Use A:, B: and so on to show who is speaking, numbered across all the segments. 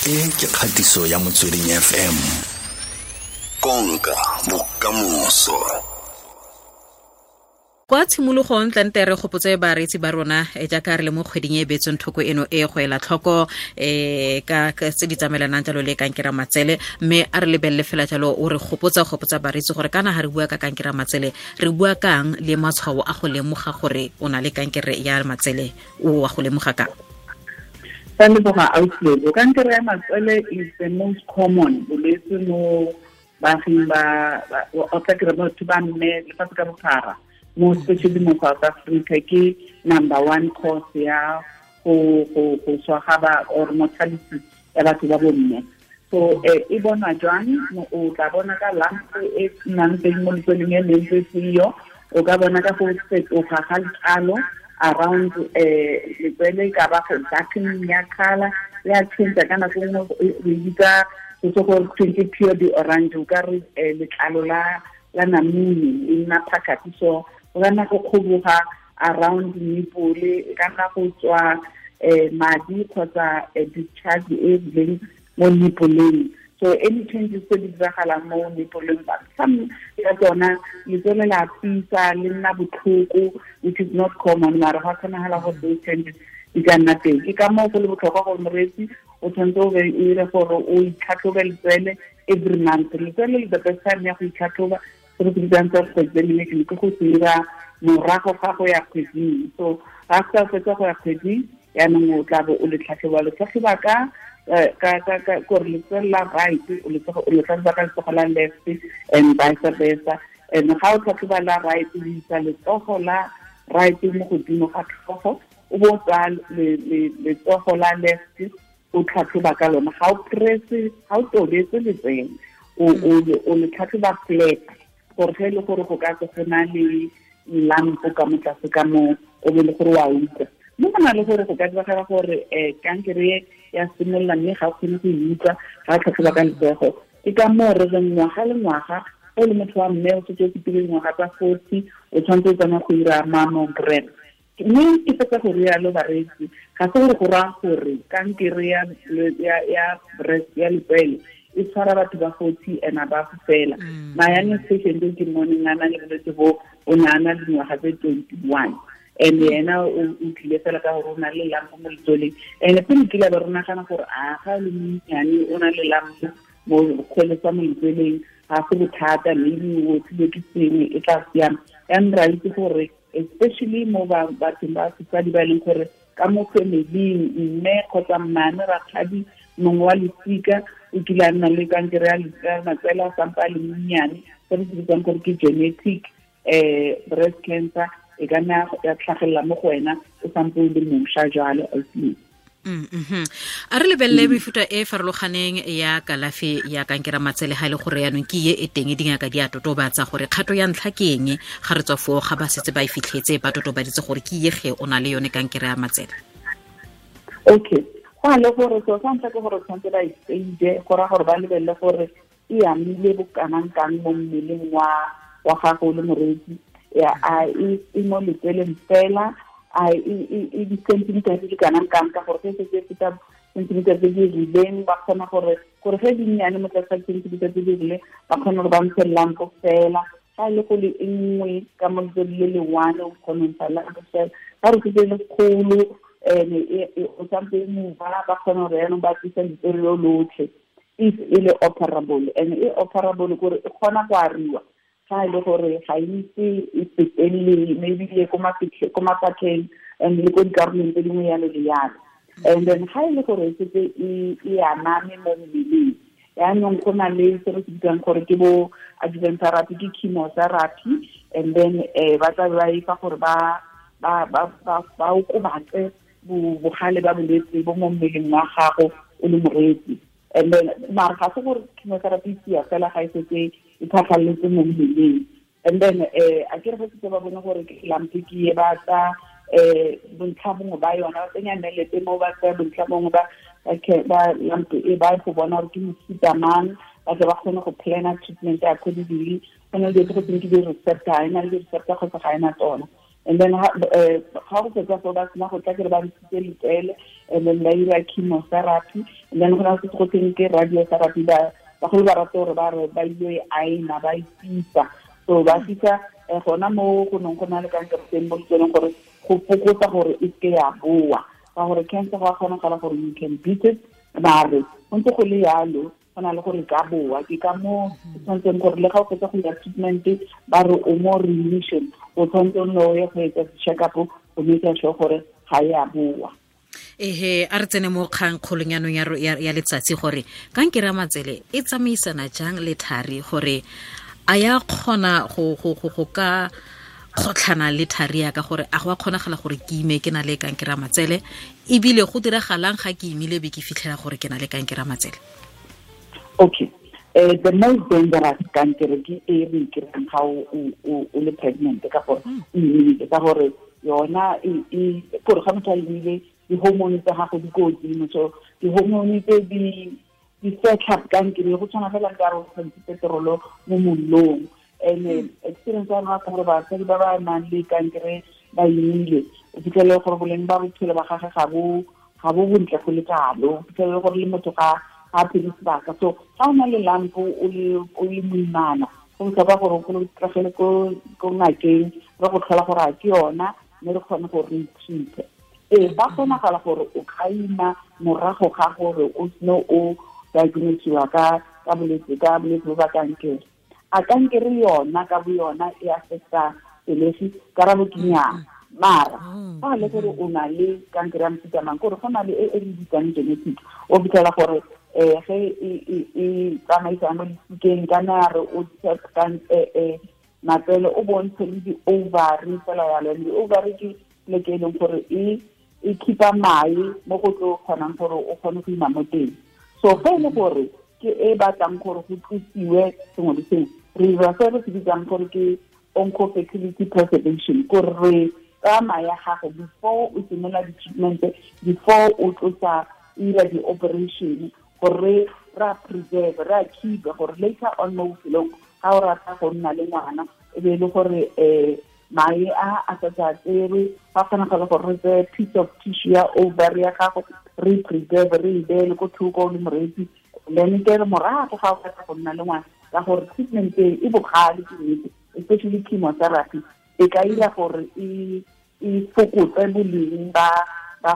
A: E ke kgatiso ya Motsweding FM. Konka bokamoso.
B: Kwa tshimologong tlante re gopotse bareetsi ba rona jaaka re le mo kgweding e beetsweng thoko eno e go ela tlhoko ka tse di tsamaelanang jalo le kankere matsele, mme a re lebelele fela jalo o re gopotsa bareetsi gore kana ga re bua ka kankere matsele re bua kang le matshwao a go lemoga gore o na le kankere ya matsele, o wa go lemoga kang?
C: Kankere ya matsele is the most common bolwetse mo baaging ba o tla kry batho ba mme lefatshe ka bophara, mo especially mo South Africa ke number one cause ya go swa ga ba or mortality ya batho ba bomme. So e bonwa jwang? O tla bona ka lump e nnang teng mo letsweleng e leng seyo, o ka bona ka go fetoga ga letlalo around letswele, ka ba go darkening ya colour ya change ka nako nngwe re bitsa go gore ke pure di orange, o ka re letlalo la namune e nna phakathi. So o ka nna go kgoboga around nipple, e ka nna go tswa madi kgotsa discharge e rileng mo nipoleng. So any changes tse di diragalang mo nipoleng, some ya tsona letswele la fisa le nna botlhoko, which is not common, mara ga kgonagala gore those changes di ka nna teng. Ke ka moo go le botlhokwa gore moreetsi o tshwanetse o be o dire gore o itlhatlhobe letswele every month. Letswele le the best time ya go itlhatlhoba se re se bitsang self-examination ke go se dira morago ga go ya kgweding. So ga sa fetsa go ya kgweding yaanong o tla bo o le tlhatlhoba, le tlhatlhoba ka gore letswele la right o le tlhatlhoba ka letsogo la left and vice versa. And ga o tlhatlhoba la right o isa letsogo la right mo godimo ga tlhogo, o bo tsaya letsogo la left o tlhatlhoba ka lona. Ga o press, ga o tobetse letswele, o le tlhatlhoba flat gore ge e le gore go ka tswa go na le lampo ka mo tlase ka mo o be le gore wa utlwa. Mme go na le gore go ka diragala gore kankere ya simolola mme ga o kgone go e utlwa ga o tlhatlhoba ka letsogo. Ke ka moo re reng ngwaga le ngwaga o le motho wa mme o setse o fetile dingwaga tsa 40 o tshwanetse o tsamaya go dira mammogram. Mme ke fetsa go rialo bareetsi, ga se gore go raya gore kankere ya breast ya letswele e tshwara batho ba 40 and above fela. My youngest patient ke mmone a na le bolwetse bo, o ne a na le dingwaga tse 21, and yena o tlile fela ka gore o na le lampo mo letsweleng. And pele kile ba re nagana gore a ga le monnyane o na le lampo mo kgweletsa mo letsweleng ga se bothata, maybe o tlile ke sengwe e tla siama. Yaanong re a itse gore especially mo bathong ba sesadi ba e leng gore ka mo familing mme kgotsa mmane rakgadi mongwe wa losika o kile a nna le kankere ya matsele a sampa a le monnyane, se re se bitsang gore ke genetic breast cancer, e ka nna ya tlhagelela mo go wena o sampe o le mošwa jalo.
B: A re lebelele mefuta e farologaneng ya kalafi ya kankere matsele ga e le gore yaanong ke ye e teng dingaka di a totobatsa gore kgato ya ntlha ke eng ga re tswa foo ga ba setse ba e fitlhetse ba totobaditse gore ke ye ge o na le yone kankere ya matsele.
C: Okay, go a le gore so sa ntlha ke gore tshwanetse ba e stage, go raya gore ba lebelele gore e amile bokanang kang mo mmeleng wa gago le moreetsi, a e mo letsweleng fela, a e di-centimeter tse di kanang kang, ka gore ge setse e feta centimeter tse di rileng ba kgona gore ge di nnyane mo tlase ga centimeter tse di rileng ba kgona gore ba ntshe lampo fela. Ga e le go le e nngwe ka mo letswele le le one o kgona go ntsha lampo fela. Ga re setse e le kgolo o sampe e mova ba kgona gore yaanong ba tlisa letswele lo lotlhe if e le operable. And e operable kore e kgona go ariwa ga e le gore ga itse e fetelele maybe le ko mafatlheng and le ko dikarolong tse dingwe yalo le yalo. And then ga e le gore e setse e aname mo mmeleng, yaanong go na le se re se bitsang gore ke bo adjuvant therapy, ke chemotherapy, and then ba tla ba e fa gore ba okobatse bogale ba bolwetse bo mo mmeleng wa gago o le moreetsi. And then mara ga se gore chemotherapy sia fela ga e setse e tlhatlhaletse mo mmeleng. And then a ke re setse ba bone gore ke lamp ke e ba tsa bontlha bongwe ba yona ba tsenya nnelete mo ba tsaya bontlha bongwe ba lamp e ba go bona gore ke mofuta mang, ba tle ba kgone go plana treatment accordingly. Go na le dilo tse go teng ke di-receptor, ga e na le di-receptor kgotsa ga e na tsona. And then ga go fetsa fo ba sena go tla kere ba ntshitse letsele, and then ba ira chemotherapy, and then go na se go teng ke radiotherapy. Ba bagolo ba rata gore ba re ba ile e aena, ba e fisa. So ba fisa gona mo go neng go na le kankere teng mo letseleng gore go fokotsa gore e seke ya boa, ka gore cancer go a kgonagala gore you can beat it, mare go ntse go le yalo go na le gore ka boa. Ke ka mo tshwanetseng gore le ga o fetsa go ya treatment ba re o mo remission, o tshwanetse o nne o ye go etsa check up go make sure gore ga ya boa.
B: Ehe, a re tsene mo kgang kgolong yanong ya letsatsi gore kankere ya matsele e tsamaisana jang le thari, gore a ya kgona go ka kgotlhana le thari ya ka, gore a go a kgonagala gore ke ime ke na le kankere ya matsele, ebile go diragalang ga ke imile be ke fitlhela gore ke na le kankere ya matsele?
C: Okay. The most dangerous kankere ke e re kry-ang ga o le pregnant, ka gore o imile, ka gore yona e gore ga motho a imile di-hormone tsa gago di ko godimo, so di-hormone tse di fetlha kankere go tshwana fela ka re o tshwanetse petrolo mo mollong. And experience ya rona ka gore basadi ba ba nang le kankere ba imile, o fitlhele gore boleng ba bophelo ba gagwe ga bo bontle go le kalo, o fitlhele gore le motho ga a phele sebaka. So ga o na le lampo o le moimana, go botlhokwa gore o tlogele ko ngakeng re go tlhola gore a ke yona, mme re kgone gore re treat. Ee, ba kgonagala gore o ka ima morago ga gore o sene o diagnosiwa ka bolwetse bo ba kankere. A kankere yona ka bo yona e affecta pelegi? Karabo ke nnyaa. Mara fa le gore o na le kankere ya mofuta mang, kore go na le e re bitsang genetic, o fitlhela gore ge e tsamaisang mo lesikeng kana re o matsele o bontshe le di-ovary fela yalo. Di-ovary ke pleke e leng gore e keep-a mae mo go tlo kgonang gore o kgone go ima mo teng. So ge e le gore ke e batlang gore go tlosiwe sengwe le sengwe, re dira se re se bitsang gore ke oncofertility preservation, gore re tsaya mae a gago before o simolola di-treatment, before o tlosa ira di-operation, gore re a preserve, re a keep gore later on mo bophelong ga o rata go nna le ngwana e be e le gore mae a sa tserwe, ga kgonagala gore re tseye piece of tissue ya ovary ya gago re preserve, re e beele ko thoko le moreetsi, then ke re morago ga o batla go nna le ngwana, ka gore treatment e bogale ke nnete, especially chemotherapy e ka ira gore e fokotse boleng ba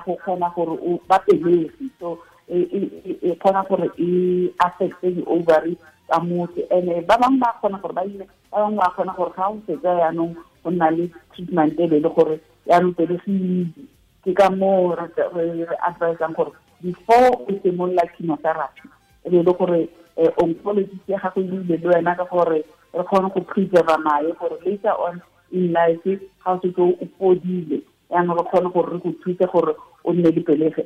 C: go kgona gore ba pelegi. So e kgona gore e affecte di-ovary tsa motho. And ba bangwe ba kgona gore ba ime, ba bangwe ba kgona gore ga o fetsa yaanong go nna le treatment e be le gore yaanong pelegi. Ke ka moo re advisang gore before o simolola chemotherapy e be le gore oncologist ya gago e buile le wena, ka gore re kgone go preserve mae gore later on in life ga o setse o fodile yaanong re kgone gore re go thuse gore o nne le pelegi.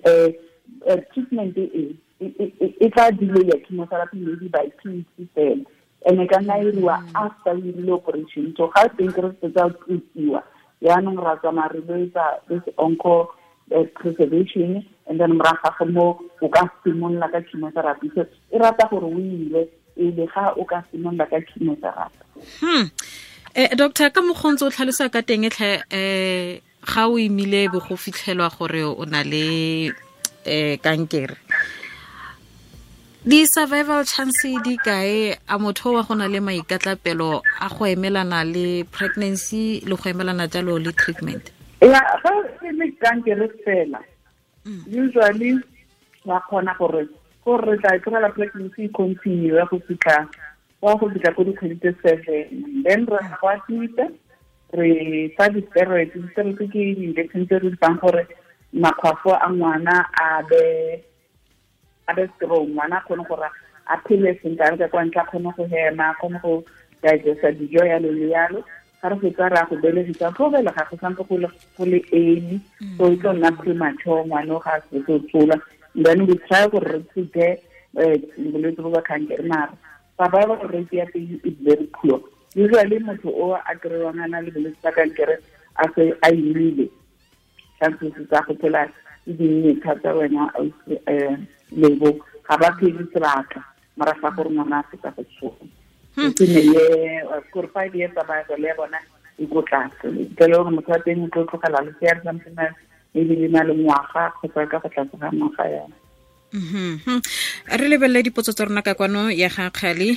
C: Treatment e tla delay ya chemotherapy maybe by 2 weeks fela, and e ka nna iriwa after o irile operation. So ga teng ke re fetsa tlosiwa yaanong ra tsamaya re lo etsa this onco preservation, and then morago ga mo o ka simolola ka chemotherapy. So e rata gore o ile pele ga o ka simolola ka chemotherapy.
B: Doctor, ka mokgontse o tlhalosa ka teng tlhe, ga o imile bo go fitlhelwa gore o na le kankere, di-survival chance di kae? A motho wa go na le maikatlapelo a go emelana le pregnancy le go emelana jalo le treatment?
C: Ya, ga e le kankere fela, usually wa kgona gore re tla tlogela pregnancy continue go fitlha ko dikgwedi tse 7, then re go admit-a, re fa di-steroids. Di-steroids ke di-injection tse re di fang gore makgwafo a ngwana a be strong, ngwana a kgone gore a phele sentle, a re ka kwa ntle a kgone go hema, a kgone go digesta dijo yalo le yalo. Ga re fetsa re a go belegisa, go belega go sampe go le early, so e tlo nna premature, ngwana o ga a setse o tshola. Then we try gore re treat bolwetse bo ba kankere, mara survival rate ya teng is very poor. Usually motho o a kry-wang a na le bolwetse ba kankere a se a imile, chances tsa go phela di dinnye thata wena lebo, ga ba phele sebaka morago ga gore ngwana a fetsa go tshola. Ke ne le gore 5 years survival ya bona e ko tlase. Ke le gore motho wa teng o tlo tlogela lesea le santse maybe le na le ngwaga kgotsa ka go tlase ga ngwaga yana.
B: Re lebelele dipotso tsa rona ka kwano ya ga Kgale,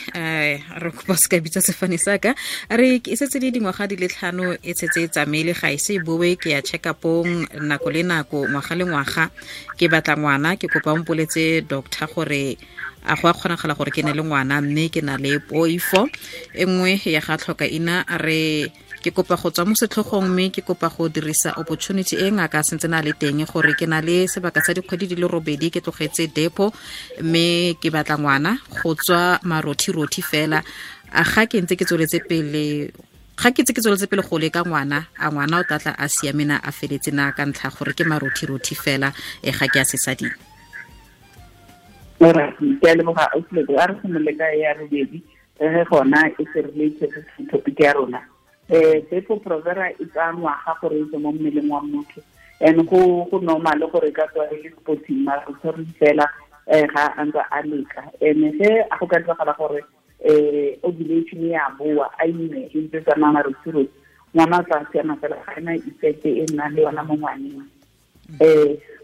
B: re kopa se ka bitsa sefane sa ka. Re e setse le dingwaga di le 5 e setse e tsamaile, ga e se boe, ke ya check upong nako le nako, ngwaga le ngwaga, ke batla ngwana, ke kopa o mpoletse doctor gore a go a kgonagala gore ke ne le ngwana, mme ke na le poifo. E nngwe ya ga tlhoka ina a re ke kopa go tswa mo setlhogong, mme ke kopa go dirisa opportunity e ngaka sentse na le teng gore ke na le sebaka sa dikgwedi di le 8 ke tlogetse depo, mme ke batla ngwana go tswa marothi-rothi fela. A ga ke ntse ke tsweletse pele, ga ke ntse ke tsweletse pele go leka ngwana, a ngwana o tla tla a siame na, a feletse na ka ntlha gore ke marothi-rothi fela, e ga ke a sesading.
C: Ora, ke a leboga ausi, a re simolole ka ya robedi, re gona e se related to topic ya rona. Depo Provera e tsaya ngwaga gore e tswe mo mmeleng wa motho, and go normal gore e ka tswa e le spotting, mara o tshwere fela ga a ntse a leka. And ge a go ka diragala gore ovulation ya boa, a ime e ntse tsamaya marothi-rothi, ngwana o tla siama fela, ga ena effect e nnang le yona mo ngwaneng.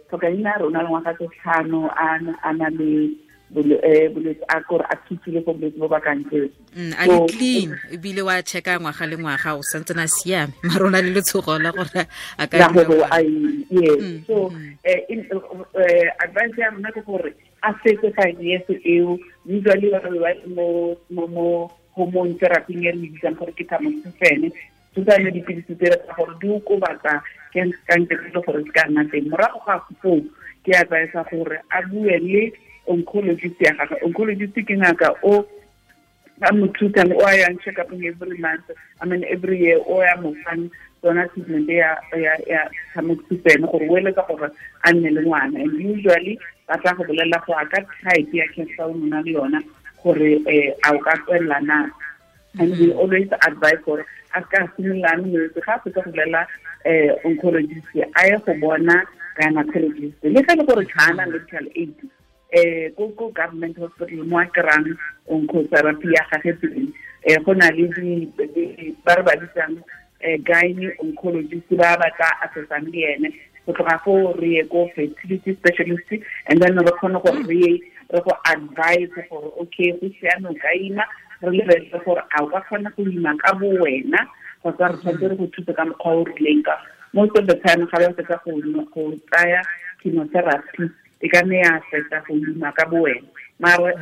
C: Tlhokaina rona le ngwaga tse 5 a na le bolwetse a kore a thusile go bolwetse bo ba kankere.
B: A le clean ebile wa checka ngwaga le ngwaga o santse na siame, mara o na le letshogo la gore a ka
C: yes. So advice ya rona ke gore a fetse 5 years eo, usually ba ba mo hormone therapy e re bitsang gore ke tamoxifen, tsone dipilisi tse tsa gore di okobatsa kankere le gore se ka nna teng. Morago ga foo ke advise gore a bue le oncologist ya gagwe. Oncologist ke ngaka o a mo thusang, o a yang check up every month, I mean every year, o ya mo fang tsona treatment ya tamoxifen gore o eletsa gore a nne le ngwana. And usually ba tla go bolelela go ka type ya cancer o nna le yona gore a o ka tswelela na. And we always advise gore a ka simolola molwetse ga a fetsa go bolela oncologist a ye go bona gynecologist, le ge le gore ga ana medical aid, ko government hospital mo a kry-ang oncotherapy ya gage teng, go na le ba re ba bitsang gyne oncologist ba ba tla assessang le ene. Go tloga foo re ye ko fertility specialist, and then re kgone gore re go advise gore okay go siame o ka ima, re lebelele gore a o ka kgona go ima ka bo wena kgotsa re tshwanetse re go thuse ka mokgwa o rileng. Ka most of the time ga ba fetsa go tsaya chemotherapy e ka nne ya fetsa go ima ka bo wena, mara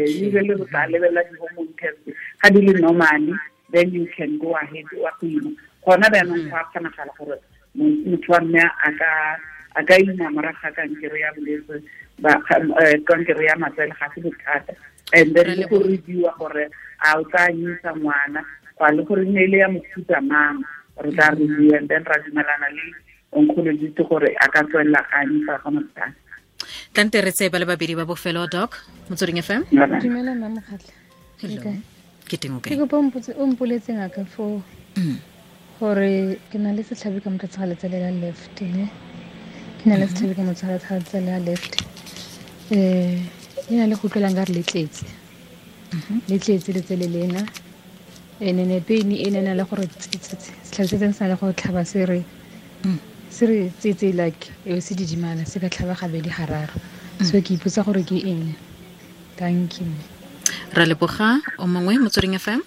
C: usually re tla lebelela di-hormone test ga di le normally, then you can go ahead wa go ima. Gona jaanong go a kgonagala gore motho wa mme a ka ima morago ga kankere ya bolwetse kankere ya matsele, ga se bothata. And then le go reviewa gore a o tla anyisa ngwana kwa le gore ne le ya mofuta mang, re tla review and then ra dumelana le oncologist gore a ka tswelela ga anyisa ga mothata.
B: Tlante re tseye ba le babedi ba bofelo, Doc Motsweding FM.
D: Dumela mma Mokgatlha.
B: Ke teng o kae?
D: Ke kopa o mpoletse ngaka foo gore ke na le setlhabi ka motho ga letsele la left, ne ke na le setlhabi ka motho ga letsele la left, le na le go utlwelang ka re le tletse, le tletse letsele lena, ene ne pain e ne na le gore setlhabi se teng se na le go tlhaba se re tsetse like e se didimala se ka tlhaba gabedi gararo. So ke ipotsa gore ke eng. Thank you.
B: Ra leboga. O mongwe Motsweding FM.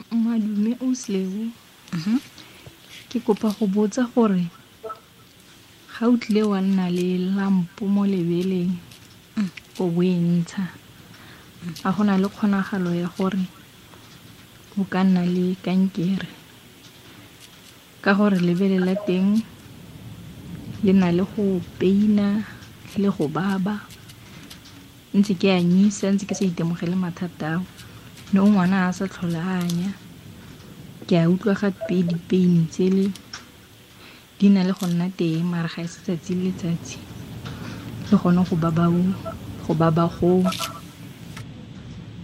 E: Madume o Sleu. Ke kopa go botsa gore ga o tlile wa nna le lampo mo lebeleng o bo e ntsha, a gona le kgonagalo ya gore o ka nna le kankere, ka gore lebele la teng le na le go peina le go baba, ntse ke anyisa ntse ke sa itemogele mathata ao, no ngwana a sa tlhola anya, ke a utlwa gape dipeini tsele di na le go nna teng mara ga e se tsatsi le letsatsi, le gone go baba go.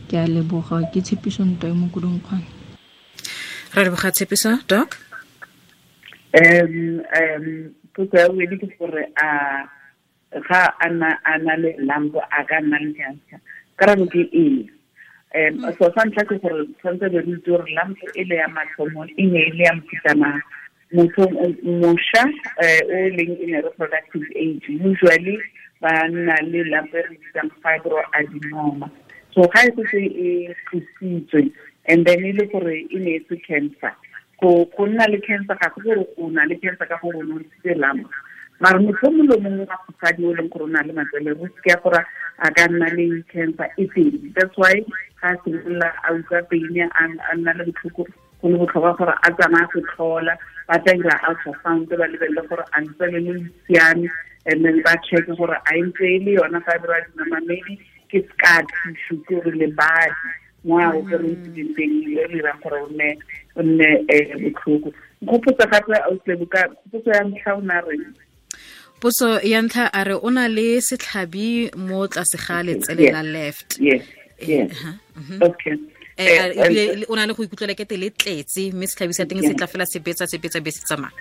E: Ke a leboga, ke Tshepiso Ntwa e mo Kudungkgwane.
B: Ra leboga Tshepiso. Doc?
C: Potso ya bobedi ke gore a ga a na le lampo a ka nna le cancer? Karabo ke ee. So sa ntlha ke gore tshwanetse be re itse gore lump e le ya mathomo e ne e le ya mofuta mang. Motho mošwa o leng in a reproductive age usually ba nna le lump e re bitsang fibroadenoma. So ga e setse e tlositswe and then e le gore e ne e se cancer, go nna le cancer ga go gore o na le cancer ka gore o ne o ntshitse lump. Mara motho mongwe le mongwe wa mosadi o leng gore o na le matsele risk ya gore a ka nna le cancer e teng. That's why ga a simolola a utlwa pain a nna le botlhoko, go le botlhokwa gore a tsamaya go tlhola, ba tla dira ultrasound ba lebelele gore a ntse le le siame, and then ba check gore a ntse e le yona fibroadenoma, maybe ke scar tissue, ke gore lebadi mo a operetileng teng le dirang gore o nne botlhoko. Nkgopotsa gape potso ya ntlha o na reng?
B: Potso ya ntlha a re o na le setlhabi mo tlase ga letsele la left.
C: Yes. Okay.
B: Ebile o na le go ikutlwela kete le tletse mme setlhabi sa teng se tla fela se betsa be se tsamaya.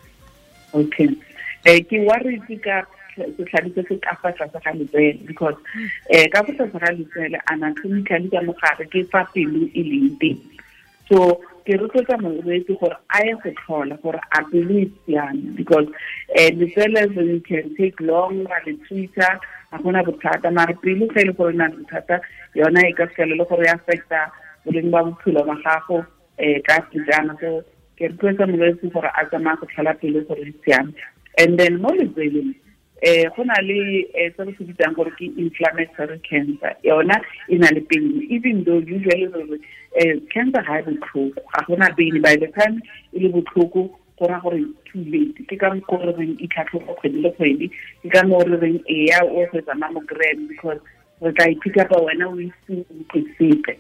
C: Okay. Ke worried ka setlhabi se se ka fa tlase ga letsele because ka fa tlase ga letsele anatomically ka mogare ke fa pelo e leng teng. So ke rotloetsa molwetse gore a ye go tlhola gore a pelo e siame because letsele you can take long ra le treat-a, ga gona bothata, mara pelo ge e le gore e na le bothata yona e ka fitlhela le gore e affecta boleng ba bophelo ba gago ka sejana. So ke rotloetsa molwetse gore a tsamaya go tlhola pelo gore e siame. And then mo letseleng go na le se re se bitsang gore ke inflammatory cancer, yona e na le pain, even though usually re cancer ga e botlhoko, ga gona pain. By the time e le botlhoko go raya gore too late. Ke ka mokgwa re reng itlhatlhoba kgwedi le kgwedi, ke ka moo re reng eya o go etsa mammogram because re tla e-pick up-a wena o ise utlwe sepe.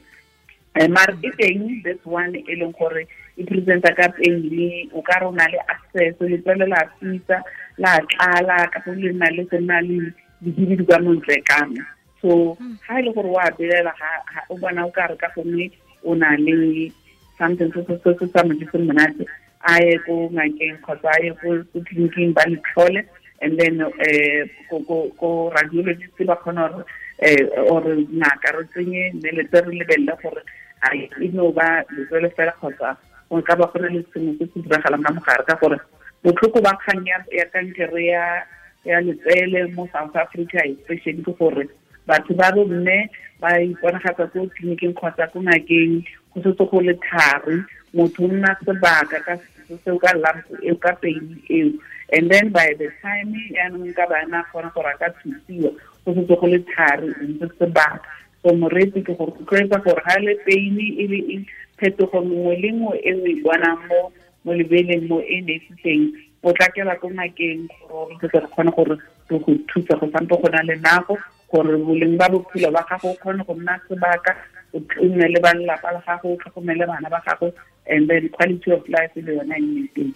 C: Mara e teng this one e leng gore e presenta ka pain, o ka re o na le access, letswele la fisa la tlala ka go le na le go nna le dihibidu ka montle kana. So ga e le gore wa belela ga o bona o ka re ka gongwe o na le something se se sa mo jeseng monate, a ye ko ngakeng kgotsa a ye ko tleliniking ba le tlhole, and then ko radiologist ba kgona gore or ngaka re tsenye nnelete re lebelele gore a e no ba letswele fela kgotsa go ka ba go na le sengwe se se diragalang ka mogare, ka gore botlhoko ba kgang ya kankere ya letsele mo South Africa especially ke gore batho ba bomme ba iponagatsa ko tleliniking kgotsa ko ngakeng go setse go le thari, motho o nna sebaka ka seo ka lump eo ka pain eo, and then by the time yaanong ka bana kgona gore a ka thusiwa go setse go le thari ntse sebaka. So moreetsi ke gore rotloetsa gore ga le pain e le eng, phetogo nngwe le nngwe e o e bonang mo lebeleng mo e ne se teng, potlakela ko ngakeng gore re tle re kgone gore re go thusa go sampo go na le nako gore boleng ba bophelo ba gago o kgone go nna sebaka, o nne le ba lelapa la gago, o tlhokomele bana ba gago, and then quality of life le yona e nne teng.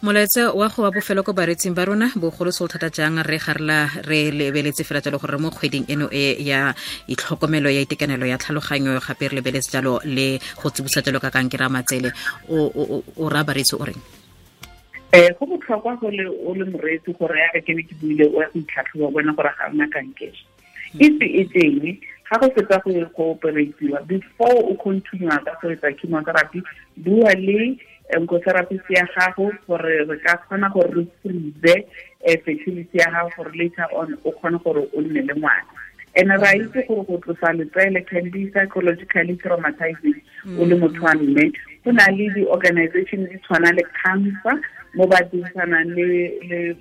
B: Molaetsa wa go wa bofelo ko baretsing ba rona bogolo se thata jang re garela re lebeletse fela jalo gore mo kgweding eno e ya itlhokomelo ya itekanelo ya tlhaloganyo gape re lebeletse jalo le go tsibosa jalo ka kankere ya matsele, o ra baretsi o reng?
C: Go botlhokwa go le o le moreetsi gore ya ke ne ke buile o ya go itlhatlhoba bona gore ga ona kankere. If e teng ga go fetsa go operatiwa, before o continue ka go etsa chemotherapy, bua le oncotherapist ya gago gore re ka kgona gore re freeze fertility ya gago gore later on o kgone gore o nne le ngwana. And ra itse gore go tlosa letsele can be psychologically traumatizing o le motho wa mme. Go na le di-organization di tshwana le cancer mo ba dirisanang le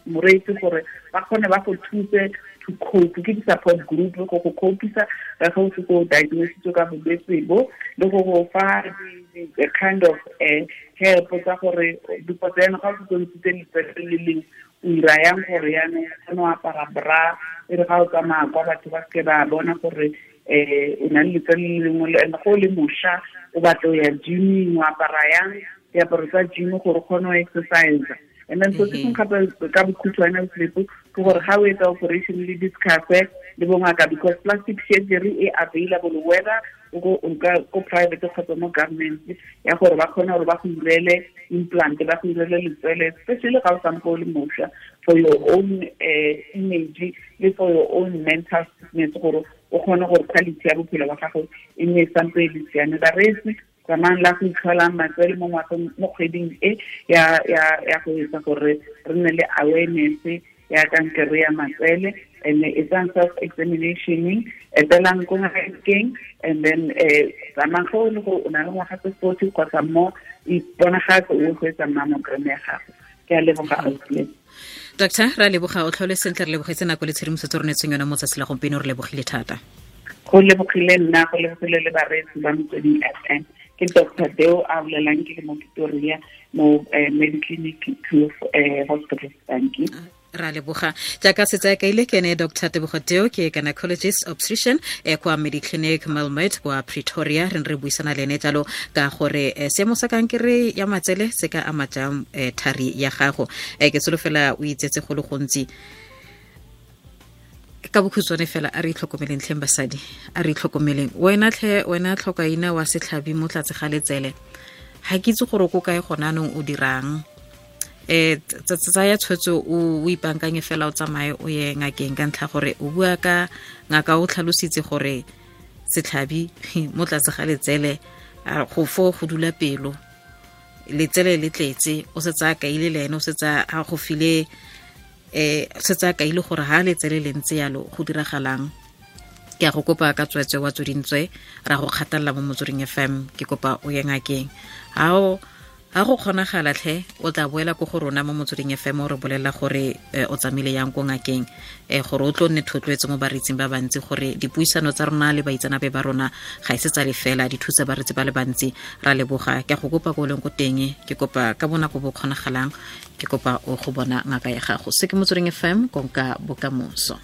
C: moreetsi gore ba kgone ba go thuse to cope, ke di-support group go go copisa ka ga o se go diagnositswe ka bolwetse bo, le go go fa the kind of help tsa gore because yaanong ga o setse o ntshitse letsele le lengwe o ira yang gore yaanong o kgone go apara bra, e re ga o tsamaya kwa batho ba seke ba bona gore o na le letsele le lengwe, and go le mošwa o batla o ya gyming, o apara yang diaparo tsa gym gore o kgone go exercise. And then so se sengwe gape ka bokhutshwane sleep ke gore ga o etsa operation le discuss le bongaka because plastic surgery e available whether o ko private kgotsa mo government ya gore ba kgone gore ba go irele implant, ba go irele letswele, especially ga o sampo o le mošwa, for your own image le for your own mental fitness gore O kgone gore quality ya bophelo ba gago e nne sampe e le siame. Bareetsi, tsamayang la go itlholang matsele mo ngwageng, mo kgweding e ya go etsa gore re nne le awareness ya kankere ya matsele, and etsang self examination, etelang ko ngakeng, and then tsamayang go le gore o na le ngwaga tse 40 kgotsa mo, iponagatse o go etsa mammogram ya gago. Ke a leboga ausi.
B: Doctor, ra leboga, o tlhole sentle, re lebogetse nako le tshedimosetso re neetseng yone mo tsatsi la gompieno, re lebogile thata.
C: Go lebogile nna, go lebogile le bareetsi ba Motsweding FM. Ke Dr. Deo a bolelang, ke le mo Pretoria mo Mediclinic Hospital. Thank you.
B: Ra leboga. Jaaka setse a kaile, ke ene Dr. Tebogo Deo, ke gynecologist obstetrician kwa Mediclinic Melmet kwa Pretoria. Re ne re buisana le ene jalo ka gore seemo sa kankere ya matsele se ka ama jang thari ya gago. Ke solofela o itsetse go le gontsi. Ka bokhutshwane fela, a re itlhokomeleng tlheng basadi, a re itlhokomeleng. Wena tlhe, wena tlhokaina wa setlhabi mo tlatse ga letsele, ga ke itse gore ko kae gona anong o dirang. Tsaya tshwetso, o ipankanye fela, o tsamaye o ye ngakeng, ka ntlha gore o bua ka ngaka o tlhalositse gore setlhabi mo tlatse ga letsele go fo go dula pelo, letsele le tletse, o setse a kaile le ene, o setse a go file, setse a kaile gore ha letsele le ntse yalo go diragalang. Ke a go kopa ka tswetswe wa tsodintswe, ra go kgathalela mo Motsweding FM, ke kopa o ye ngakeng. Ha go kgonagala tlhe, o tla boela ko go rona mo Motsweding FM o re bolelela gore o tsamaile yang ko ngakeng, gore o tlo nne thotloetso mo bareetsing ba bantsi, gore dipuisano tsa rona le baitsanape ba rona ga e se tsa lefela, di thusa bareetsi ba le bantsi. Ra leboga. Ke a go kopa ko o leng ko teng, ke kopa ka bonako bo kgonagalang, ke kopa o go bona ngaka ya gago. Se ke Motsweding FM, konka bokamoso.